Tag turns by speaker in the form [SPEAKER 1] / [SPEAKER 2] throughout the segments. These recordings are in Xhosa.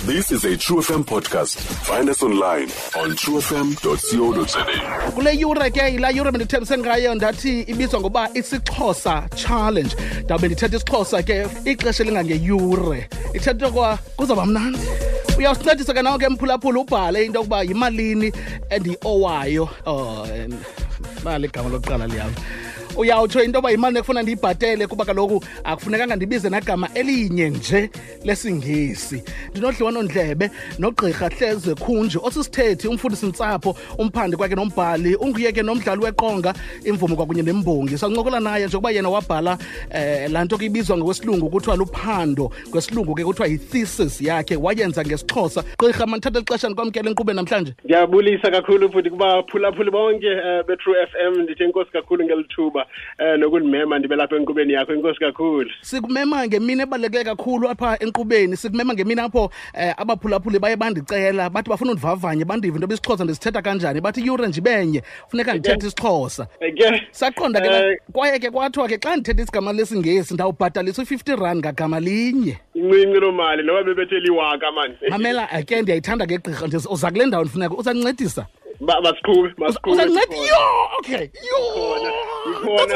[SPEAKER 1] This is a True FM podcast. Find us online on truefm.co.za.
[SPEAKER 2] Kule yure ke yilaa yure bendithembise ngayo, ndathi ibizwa ngoba isiXhosa Challenge. Ndawube ndithetha isiXhosa ke ixesha elingangeyure, ithetha kwa kuzawuba mnandi. Uyawusincedisa ke nawe ke mphulaphula, ubhale into yokuba yimalini endiyiowayo. Oh, bali igama lokuqala liyam. Uyawutsho into yoba yimali ekufuna ndiyibhatele, kuba kaloku akufunekanga ndibize nagama elinye nje lesiNgesi. Ndinodliwanondlebe nogqirha Hleze Khunji, osisithethi, umfundisi-ntsapho, umphandi kwakhe nombhali, unguye ke nomdlali weqonga, imvumi kwakunye nembongi. Sancokola naye njengoba yena wabhala laa nto ke ibizwa ngokwesilungu kuthiwa luphando, kwesilungu ke kuthiwa yi-thesis yakhe, wayenza ngesiXhosa. Gqirha, mandithathe lixesha ndikwamkele enkqubeni namhlanje.
[SPEAKER 3] Ndiyabulisa kakhulu futhi kubaphulaphuli bonke be-True FM. Ndithi enkosi kakhulu ngeli thuba nokundimema ndibe lapha enkqubeni yakho. Enkosi kakhulu.
[SPEAKER 2] Sikumema ngemini ebaluleke kakhulu apha enkqubeni, sikumema ngemini apho abaphulaphuli baye bandicela, bathi bafuna undivavanye, bandive into isiXhosa ndisithetha kanjani. Bathi iyure nje ibenye funeka ndithethe isiXhosa. Saqonda ke, kwaye ke kwathiwa ke xa ndithetha isigama lesiNgesi ndawubhatalisa u-50 rand ngagama linye.
[SPEAKER 3] Incinci loo mali, noba bebethe liwaka mani.
[SPEAKER 2] Mamela ke, ndiyayithanda ke gqirha, uza kule ndawo ndifuneka uzancedisa.
[SPEAKER 3] Masiqhube, masiqhube.
[SPEAKER 2] Uzanceda? Yho, okay. Yho.
[SPEAKER 3] Ikhona.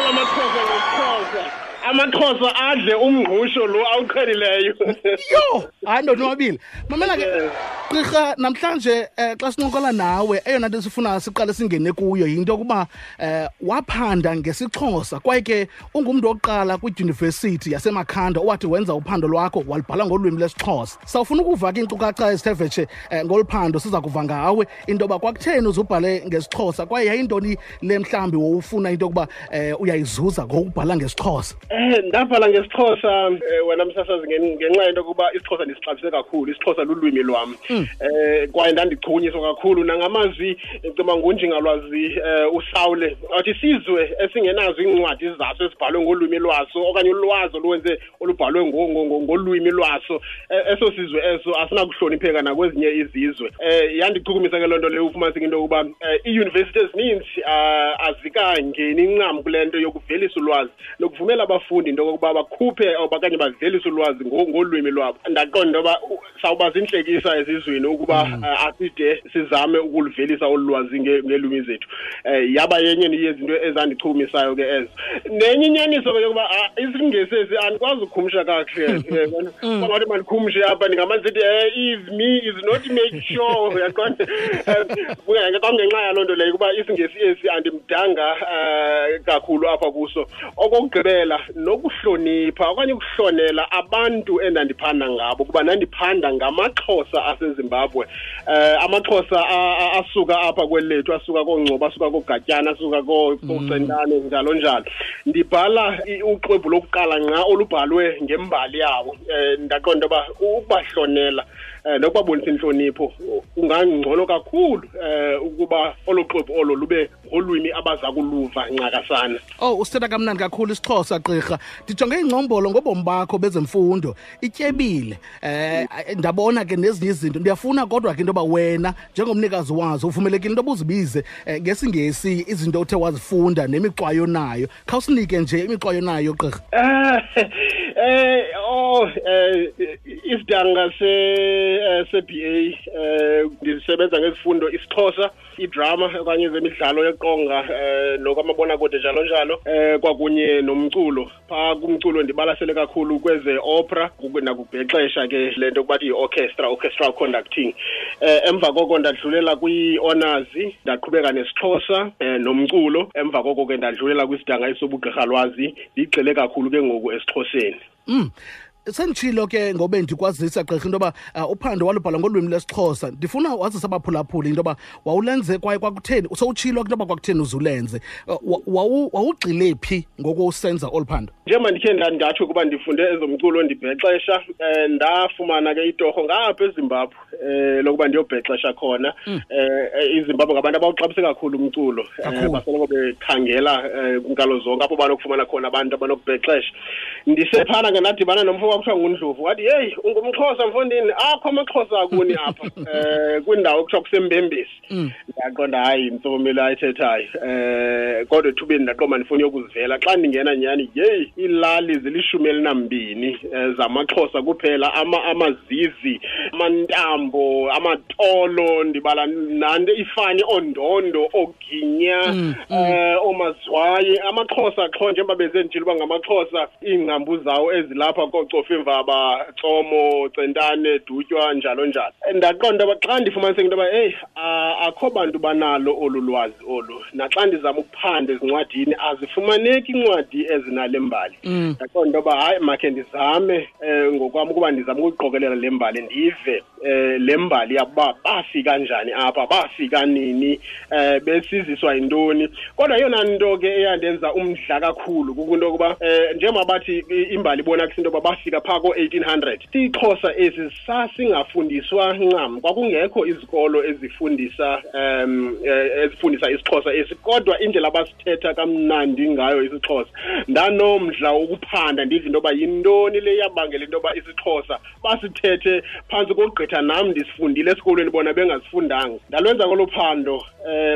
[SPEAKER 3] Amaxhosa ngesiXhosa. AmaXhosa adle umngqusho lo awuqhelileyo.
[SPEAKER 2] Yho, hayi ndonwabile. Mamela ke gqirha, namhlanje xa sincokola nawe, eyona nto sifuna siqale singene kuyo yinto yokuba waphanda ngesiXhosa, kwaye ke ungumntu wokuqala kwidyunivesithi yaseMakhanda owathi wenza uphando lwakho walubhala ngolwimi lwesiXhosa. Sawufuna ukuva ke iinkcukacha ezithe vetshe ngolu phando. Siza kuva ngawe into yoba kwakutheni uzubhale ngesiXhosa, kwaye yayintoni le mhlawumbi wowufuna into yokuba uyayizuza ngokubhala ngesiXhosa.
[SPEAKER 3] Ndabhala ngesiXhosa wena msasazi ngenxa yento yokuba isiXhosa ndisixabise kakhulu. IsiXhosa lulwimi lwam. Kwaye ndandichukunyiswa kakhulu nangamazwi cima ngunjingalwazi uSaule athi isizwe esingenazo iincwadi zaso ezibhalwe ngolwimi lwaso okanye ulwazi oluwenze olubhalwe ngolwimi lwaso, eso sizwe eso asinakuhlonipheka nakwezinye izizwe. Yandichukumisa ke loo nto leyo, ufumaniseka into yokuba iiyunivesithi ezininzi azikangeni ncam kule nto yokuvelisa ulwazi nokuvumela abafundi into yokokuba bakhuphe okanye bavelise ulwazi ngolwimi lwabo. Ndaqonda into yoba sawuba zintlekisa ezizweni ukuba aside sizame ukuluvelisa olu lwazi ngeelwimi zethu. Yaba yenye yezinto ezandichukumisayo ke ezo. Nenye inyaniso ke yokuba isiNgesi esi andikwazi ukukhumsha kakuhle. Kwangathi mandikhumshe apha, ndingamane sithi is me is not make sure, uyaqonda? Kwangenxa yaloo nto leyo ukuba isiNgesi esi andimdanga kakhulu apha kuso. Okokugqibela, nokuhlonipha okanye ukuhlonela abantu endandiphanda ngabo, kuba ndandiphanda ngamaXhosa aseZimbabwe. AmaXhosa asuka apha kweli lethu, asuka kooNgcobo, asuka kooGatyana, asuka kooCentane, njalo njalo. Ndibhala uxwebhu lokuqala ngqa olubhalwe ngembali yawo. Ndaqonda uba ukubahlonela nokubabonisa intlonipho kungangcono kakhulu ukuba olo xwebhu olo lube ngolwimi abaza kuluva ncakasana.
[SPEAKER 2] Oh, usithetha kamnandi kakhulu isiXhosa gqirha. Ndijonge ingcombolo ngobomi bakho bezemfundo, ityebile. Ndabona ke nezinye izinto. Ndiyafuna kodwa ke into yoba wena njengomnikazi wazo uvumelekile into yoba uzibize ngesiNgesi izinto othe wazifunda nemixwayo nayo. Khawusinike nje imixwayo nayo gqirha.
[SPEAKER 3] Oh, isidanga se-BA, ndisebenza ngezifundo isiXhosa, idrama okanye ezemidlalo yeqonga nokwamabonakude njalo njalo, kwakunye nomculo. Phaa kumculo ndibalasele kakhulu kweze opera nakubhexesha ke le nto kubathi yi-orchestra, orchestral conducting. Emva koko ndadlulela kwi-honors, ndaqhubeka nesiXhosa nomculo. Emva koko ke ndadlulela kwisidanga esobugqirhalwazi, ndigxile kakhulu ke ngoku esiXhoseni.
[SPEAKER 2] Senditshilo ke ngobe ndikwazisa gqirha into yoba uphando walubhala ngolwimi lwesiXhosa. Ndifuna wazisa abaphulaphuli into yoba wawulenze kwaye kwakutheni, sowutshilo into yoba kwakutheni uzulenze. Wawugxile phi ngoku usenza olu phando?
[SPEAKER 3] Njengoba ndikhe ndatsho ukuba ndifunde ezomculo ndibhexesha, ndafumana ke itorho ngapha eZimbabwe. lokuba ndiyobhexesha khona. IZimbabwe ngabantu abawuxabise kakhulu umculo, basoloko bekhangela kwinkalo zonke apho banokufumana khona abantu abanokubhexesha. Ndisephana ke ndadibana nomfo kwakuthiwa nguNdlovu, wathi heyi, ungumXhosa mfondini, akho amaXhosa akuni apha kwindawo ekuthiwa kuseMbembesi. Ndaqonda hayi intsomi le ayithethayo, kodwa ethubeni ndaqonda ndifuna uyokuzivela. Xa ndingena nyhani, yeyi, iilali zili-12 zamaXhosa kuphela, amazizi, amantambo, amatolo, ndibala nanto ifani, oondondo, ooginya, oomazwayi, amaXhosa qho njengoba bezenditshilo uba ngamaXhosa, iingcambu zawo ezilapha kooCofimvaba, Tsomo, Centane, Dutywa, njalo njalo. Ndaqonda uba xa ndifumaniseka into yoba eyi, akho bantu banalo olu lwazi olu, naxa ndizama ukuphanda ezincwadini azifumaneki iincwadi ezinale mbali. Ndaqonda into yoba hayi, makhe ndizame ngokwam ukuba ndizame ukuyiqokelela le mbali, ndive le mbali yabo bafika njani apha, bafika nini, besiziswa yintoni. Kodwa eyona nto ke eyandenza umdla kakhulu kukunto yokuba njengoba bathi imbali ibonakisa into yoba bafika phaa ko-1800, isiXhosa esi sasingafundiswa ncam, kwakungekho izikolo ezifundisa isiXhosa esi, kodwa indlela abasithetha kamnandi ngayo isiXhosa, ndanomdla wokuphanda ndive into yoba yintoni le yabangela into yoba isiXhosa basithethe phantsi kokugqitha nam ndisifundile esikolweni bona bengasifundanga. Ndalwenza kolo phando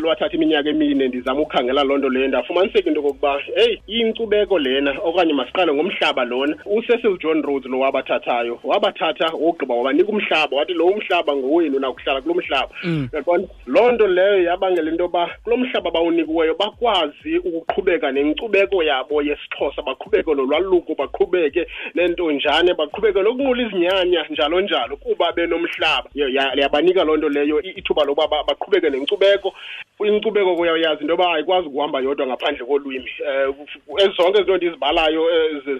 [SPEAKER 3] lwathatha iminyaka emine ndizama ukukhangela loo nto leyo. Ndafumaniseka into yokokuba heyi, inkcubeko lena, okanye masiqale ngomhlaba lona. UCecil John Rhodes lo wabathathayo, wabathatha wogqiba wabanika umhlaba, wathi lo umhlaba ngowenu, nakuhlala kulo mhlaba. Uyaqonda? Loo nto leyo yabangela into yoba kulo mhlaba bawunikiweyo bakwazi ukuqhubeka nenkcubeko yabo yesiXhosa, baqhubeke nolwaluko, baqhubeke nentonjane, baqhubeke nokunqula izinyanya, njalo njalo, kuba benomhlaba. Yabanika loo nto leyo ithuba lokuba baqhubeke nenkcubeko. Inkcubeko kuyayazi into yoba ayikwazi ukuhamba yodwa ngaphandle kolwimi. Zonke izinto ndizibalayo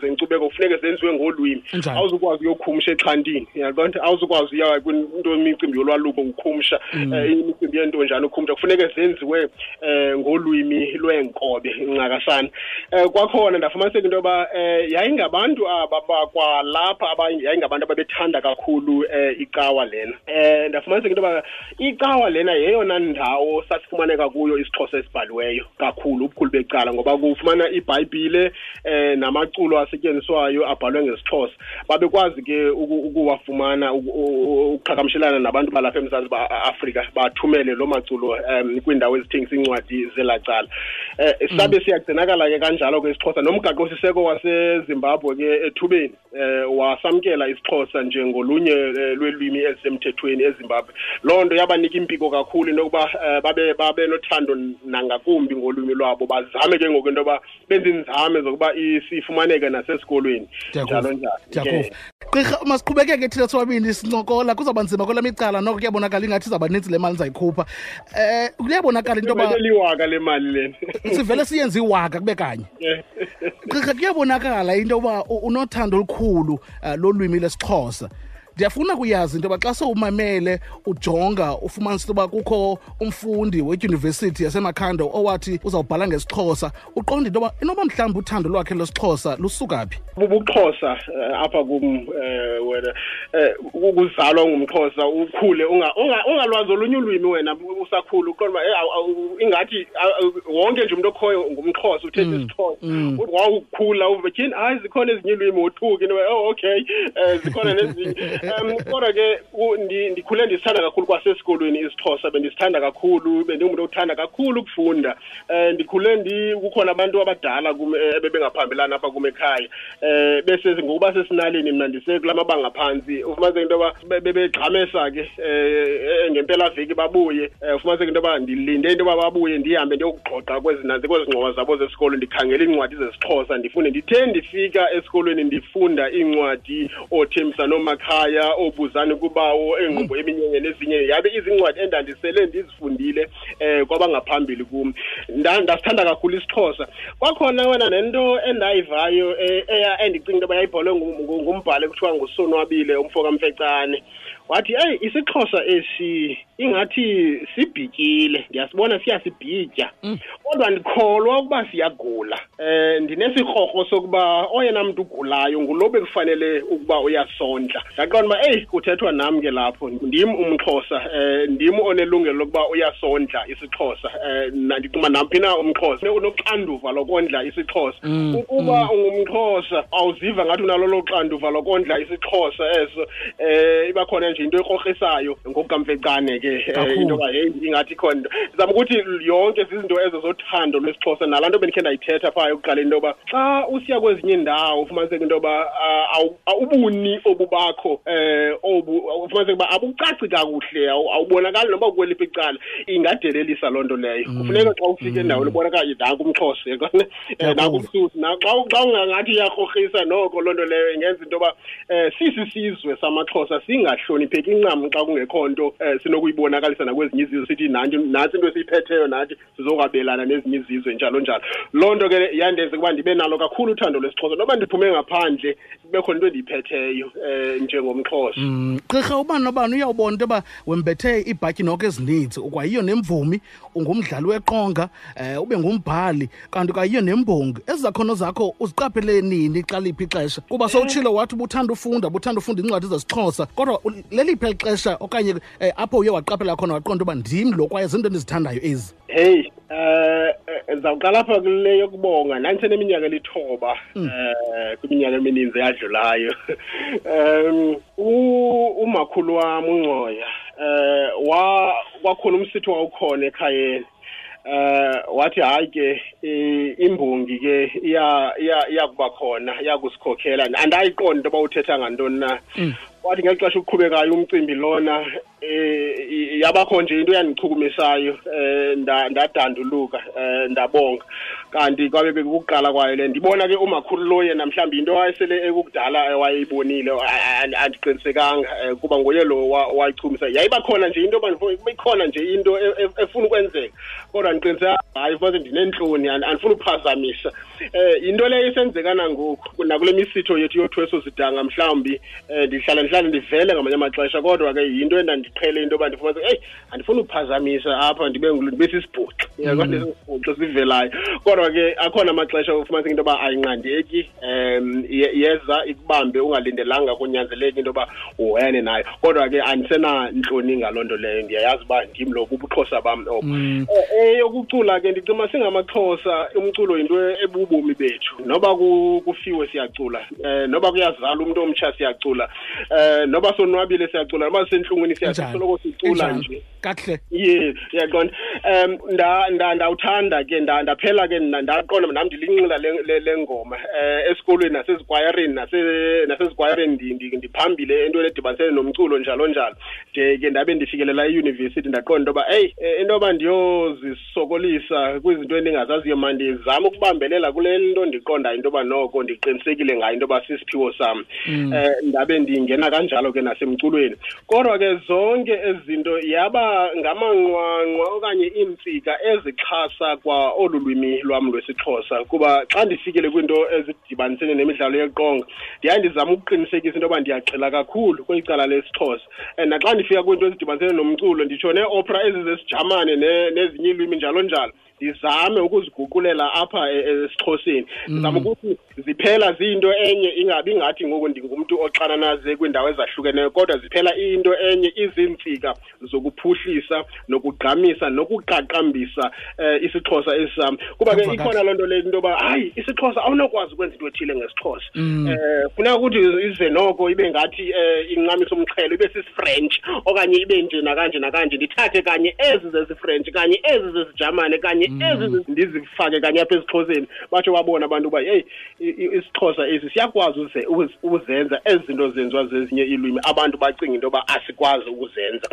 [SPEAKER 3] zenkcubeko kufuneke zenziwe ngolwimi. Awuzukwazi uyokhumsha exhantini, uyaqonda? Awuzukwazi uya kwinto imicimbi yolwaluko ukhumsha, imicimbi yentonjane ukhumsha, kufuneke zenziwe ngolwimi lweenkobe ncakasana. Kwakhona ndafumaniseka into yoba yayingabantu aba bakwalapha, yayingabantu ababethanda kakhulu icawa lena. Ndafumaniseka into yoba icawa lena yeyona ndawo sasifumaneka kuyo isiXhosa esibhaliweyo kakhulu, ubukhulu becala, ngoba kufumana iBhayibhile namaculo asetyenziswayo abhalwe ngesiXhosa. Babekwazi ke ukuwafumana, ukuqhagamshelana nabantu balapha eMzantsi Afrika, bathumele loo maculo kwiindawo ezithengisa iincwadi zelaa cala. Sabe siyagcinakala ke kanjalo ke isiXhosa. Nomgaqosiseko waseZimbabwe ke ethubeni wasamkela isiXhosa njengolunye lweelwimi ezisemthethweni eZimbabwe. Loo nto yabanika impiko kakhulu into yokuba babe nothando nangakumbi ngolwimi lwabo, bazame ke ngoku into yoba benze iinzame zokuba sifumaneke nasesikolweni, njalo njalo.
[SPEAKER 2] Gqirha, masiqhubekeke thina sobabini sincokola, kuzawuba nzima kwelam icala, noko kuyabonakala ingathi izawuba nintsi le mali ndizayikhupha. Kuyabonakala into yoba
[SPEAKER 3] liwaka le mali lena,
[SPEAKER 2] sivele siyenze iwaka kube kanye. Gqirha, kuyabonakala into yoba unothando olukhulu lolwimi lesiXhosa. Ndiyafuna kuyazi into yoba xa sewumamele ujonga ufumanisa into yoba kukho umfundi wedyunivesithi yaseMakhanda owathi uzawubhala ngesiXhosa, uqonda into yoba inoba mhlawumbi uthando lwakhe lwesiXhosa lusuka phi?
[SPEAKER 3] Bubuxhosa apha kum, wena ukuzalwa ungumXhosa, ukhule ungalwazi olunye ulwimi wena usakhula, uqonda uba ingathi wonke nje umntu okhoyo ngumXhosa, uthetha isiXhosa. Wawukhula uve tyhini, hayi zikhona ezinye iilwimi, wothuke into yoba oh okay, zikhona nezinye. Kodwa ke ndikhule ndisithanda kakhulu kwasesikolweni isiXhosa, bendisithanda kakhulu, bendingumntu othanda kakhulu ukufunda. Ndikhule kukhona abantu abadala kum ebebengaphambilana apha kum ekhaya, bese ngokuba sesinaleni mna ndisekula mabanga phantsi, ufumaniseke into yoba bebegxamesa ke ngempelaveki babuye, ufumaniseke into yoba ndilinde into yoba babuye ndihambe ndiyokugxoxa kwezi ngxowa zabo zesikolo, ndikhangela iincwadi zesiXhosa ndifunde. Ndithe ndifika esikolweni ndifunda iincwadi ooThembisa nooMakhaya, oobuzani kubawo, eengqumbo eminyenye nezinye, yabe izincwadi endandisele ndizifundile kwabangaphambili kum. Ndasithanda kakhulu isiXhosa. Kwakhona wena nento endayivayo endicinga into yoba yayibhalwe ngumbhali ekuthiwa nguSonwabile umfo kaMfecane. Wathi, eyi, isiXhosa esi ingathi sibhityile, ndiyasibona siyasibhitya, kodwa ndikholwa ukuba siyagula. Ndinesikrokro sokuba oyena mntu ugulayo ngulo bekufanele ukuba uyasondla. Ndaqonda uba eyi, kuthethwa nam ke lapho, ndim umXhosa, ndim onelungelo lokuba uyasondla isiXhosa. Ndicinga namphi na umXhosa unoxanduva lokondla isiXhosa. Ukuba ungumXhosa awuziva ngathi unalo lo xanduva lokondla isiXhosa eso, iba khona nje into ekrokrisayo ngokukaMfecane ke, into yoba heyi ingathi ikhona into. Ndizama ukuthi yonke zizinto ezo zothando lwesiXhosa, nalaa nto bendikhe ndayithetha phaa ekuqaleni, into yoba xa usiya kwezinye iindawo ufumaniseke into yoba ubuni obubakho, obu ufumaniseke uba abucaci kakuhle, awubonakali noba kukweliphi icala, ingadelelisa loo nto leyo. Kufuneka xa ufika endaweni ubonakala nanku umXhosa, uyabona? Nanku umSuthu. Xa ungangathi iyakrokrisa noko loo nto leyo ingenza into yoba sisisizwe samaXhosa singahlonipheki ncam xa kungekho nto sinokuyibonakalisa nakwezinye izizwe, sithi nantsi into esiyiphetheyo, nathi sizokwabelana nezinye izizwe, njalo njalo. Loo nto ke yandenza ukuba ndibe nalo kakhulu uthando lwesiXhosa, noba ndiphume ngaphandle kube khona into endiyiphetheyo njengomXhosa.
[SPEAKER 2] Gqirha, ubani nobani uyawubona into yoba wembethe iibhatyi noko ezininzi, ukwayiyo nemvumi, ungumdlali weqonga, ube ngumbhali, kanti ukwayiyo nembongi. Ezi zakhono zakho uziqaphele nini, xa liphi ixesha? Kuba sowutshilo wathi ubuthanda ufunda, ubuthanda ufunda iincwadi zesiXhosa, kodwa leliphi eli xesha okanye apho uye waqaphela khona waqonda uba ndim lo kwaye zinto endizithandayo ezi?
[SPEAKER 3] Hey, ndizawuqala apha kule yokubonga. Ndandiseneminyaka elithoba, kwiminyaka emininzi eyadlulayo. Umakhulu wam uNgcoya, kwakhona umsitho wawukhona ekhayeni. Wathi hayi ke, imbongi ke iyakuba khona, iyakusikhokhela. Andayiqonda into yoba uthetha ngantoni na. Wathi ngeli xesha uqhubekayo umcimbi lona, yabakho nje into eyandichukumisayo, ndadanduluka, ndabonga. Kanti kwabe bekukuqala kwayo le. Ndibona ke umakhulu lo yena mhlawumbi into wayesele ekukudala wayeyibonile, andiqinisekanga, kuba nguye lo wayichumisa. Yayiba khona nje into yoba ikhona nje into efuna ukwenzeka, kodwa ndiqiniseka hayi, fumanise ndineentloni, andifuni uphazamisa. Yinto leyo isenzeka nangoku nakule misitho yethu yothweso sidanga, mhlawumbi ndihlala ndivele ngamanye amaxesha, kodwa ke yinto endandiqhele into yoba ndifumanise, eyi, andifuni uphazamisa apha, ndibe sisibhuxi, uyabona, sisibhuxi sivelayo. Kodwa ke akhona amaxesha ufumaniseke into yoba ayinqandeki, yeza ikubambe ungalindelanga, kunyanzeleke into yoba uhoyane nayo. Kodwa ke andisenantloni ngaloo nto leyo, ndiyayazi uba ndim lo, bubuXhosa bam obo. Eyokucula ke, ndicinga singamaXhosa umculo yinto ebubomi bethu. Noba kufiwe siyacula, noba kuyazalwa umntu omtsha siyacula, noba sonwabile siyacula, noba sisentlungwini siyacula, soloko sicula nje.
[SPEAKER 2] Kakuhle.
[SPEAKER 3] Ye, uyaqonda. Ndawuthanda ke, ndaphela ke, ndaqonda nam ndilinxila le ngoma. Esikolweni nasezikwayareni, nasezikwayareni ndiphambile entweni edibanisene nomculo njalo njalo. De ke ndabe ndifikelela eyunivesithi, ndaqonda into yoba, eyi, into yoba ndiyozisokolisa kwizinto endingazaziyo, mandizame ukubambelela kule nto ndiqondayo into yoba noko ndiqinisekile ngayo into yoba sisiphiwo sam. Ndabe ndingena kanjalo ke nasemculweni. Kodwa ke zonke ezi zinto yaba ngamanqwanqwa okanye iintsika ezixhasa kwa olu lwimi lwam lwesiXhosa, kuba xa ndifikele kwiinto ezidibanisene nemidlalo yeqonga, ndiyaye ndizame ukuqinisekisa into yoba ndiyagxila kakhulu kweli cala lesiXhosa. Naxa ndifika kwiinto ezidibanisene nomculo, nditsho nee-opera ezi zesiJamane nezinye iilwimi njalo njalo, ndizame ukuziguqulela apha esiXhoseni. Ndizame ukuthi ziphela ziyinto enye, ingabi ngathi ngoku ndingumntu oxananaze kwiindawo ezahlukeneyo, kodwa ziphela iyinto enye, iziintsika zokuphuhlisa nokugqamisa nokuqaqambisa isiXhosa esam. Kuba ke ikhona loo nto le into yoba hayi, isiXhosa awunokwazi ukwenza into ethile ngesiXhosa. Funeka ukuthi ize noko ibe ngathi incamisa umxhelo, ibe sisiFrench okanye ibe nje nakanje nakanje. Ndithathe kanye ezi zesiFrench, kanye ezi zesiJamane, kanye ezi ndizifake kanye apha esiXhoseni, batsho babone abantu uba heyi, isiXhosa esi siyakwazi uzenza ezi zinto zenziwa zezinye iilwimi, abantu bacinga into yoba asikwazi ukuzenza.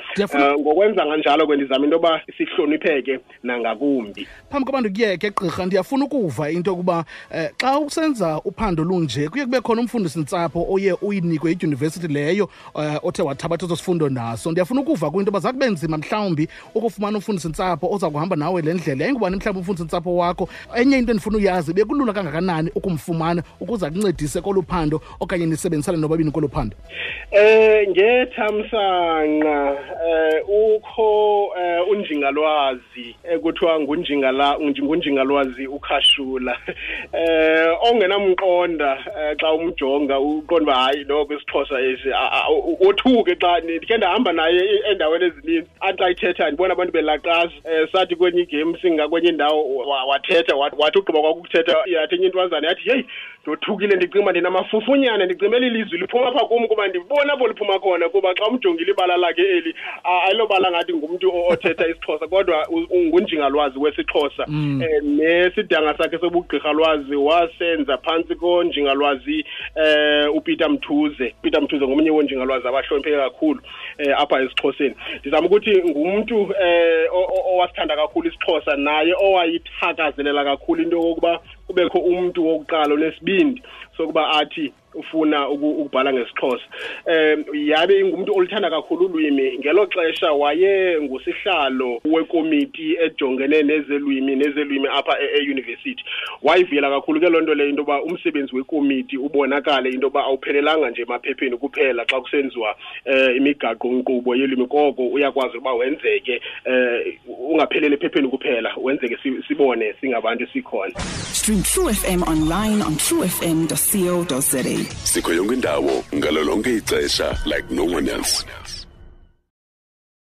[SPEAKER 3] Ngokwenza kanjalo ke ndizama into yoba sihlonipheke nangakumbi.
[SPEAKER 2] Phambi koba ndikuyeke gqirha, ndiyafuna ukuva into yokuba xa usenza uphando lunje kuye kube khona umfundisi-ntsapho oye uyinikwe idyunivesithi leyo othe wathabatha eso sifundo nawe. ngaso. Ndiyafuna ukuva kwinto yoba zakube nzima mhlawumbi ukufumana umfundisi-ntsapho oza kuhamba nawe le ndlela. Yayingubani mhlawumbi umfundisi-ntsapho wakho? Enye into endifuna uyazi, bekulula kangakanani ukumfumana ukuze akuncedise kolu phando okanye nisebenzisane nobabini kolu phando?
[SPEAKER 3] Ngethamsanqa ukho unjingalwazi ekuthiwa ngunjingalwazi uKhashula, ongenamqonda xa umjonga uqonda uba hayi noko isiXhosa esi, wothuke xa ndikhe ndahamba naye endaweni ezininzi, athi xa ithetha ndibona abantu belaqaza. Sathi kwenye igame singakwenye indawo, wathetha, wathi ugqiba kwakukuthetha, yathi enye intwazana yathi, heyi, ndothukile, ndicinga ndinamafufunyana, ndicinga eli lizwi liphuma apha kum kuba ndibona apho liphuma khona, kuba xa umjongile ibala lakhe eli ayilobala ngathi ngumntu othetha isiXhosa, kodwa ngunjingalwazi wesiXhosa. Nesidanga sakhe sobugqirhalwazi wasenza phantsi konjingalwazi uPeter Mthuze. Peter Mthuze ngomnye wonjingalwazi abahlonipheke kakhulu apha esiXhoseni. Ndizama ukuthi ngumntu owasithanda kakhulu isiXhosa, naye owayithakazelela kakhulu into yokokuba kubekho umntu wokuqala onesibindi sokuba athi ufuna ukubhala ngesiXhosa. Yabe ingumntu oluthanda kakhulu ulwimi. Ngelo xesha waye ngusihlalo wekomiti ejongene nezelwimi apha e-university. Wayivuyela kakhulu ke loo nto leyo, into yoba umsebenzi wekomiti ubonakale into yoba awuphelelanga nje emaphepheni kuphela xa kusenziwa imigaqo-nkqubo yelwimi, koko uyakwazi ukuba wenzeke, ungapheleli ephepheni kuphela, wenzeke sibone singabantu sikhona.
[SPEAKER 4] Stream True FM online on truefm.co.za.
[SPEAKER 1] Sikho yonke indawo ngalo lonke ixesha like no one else.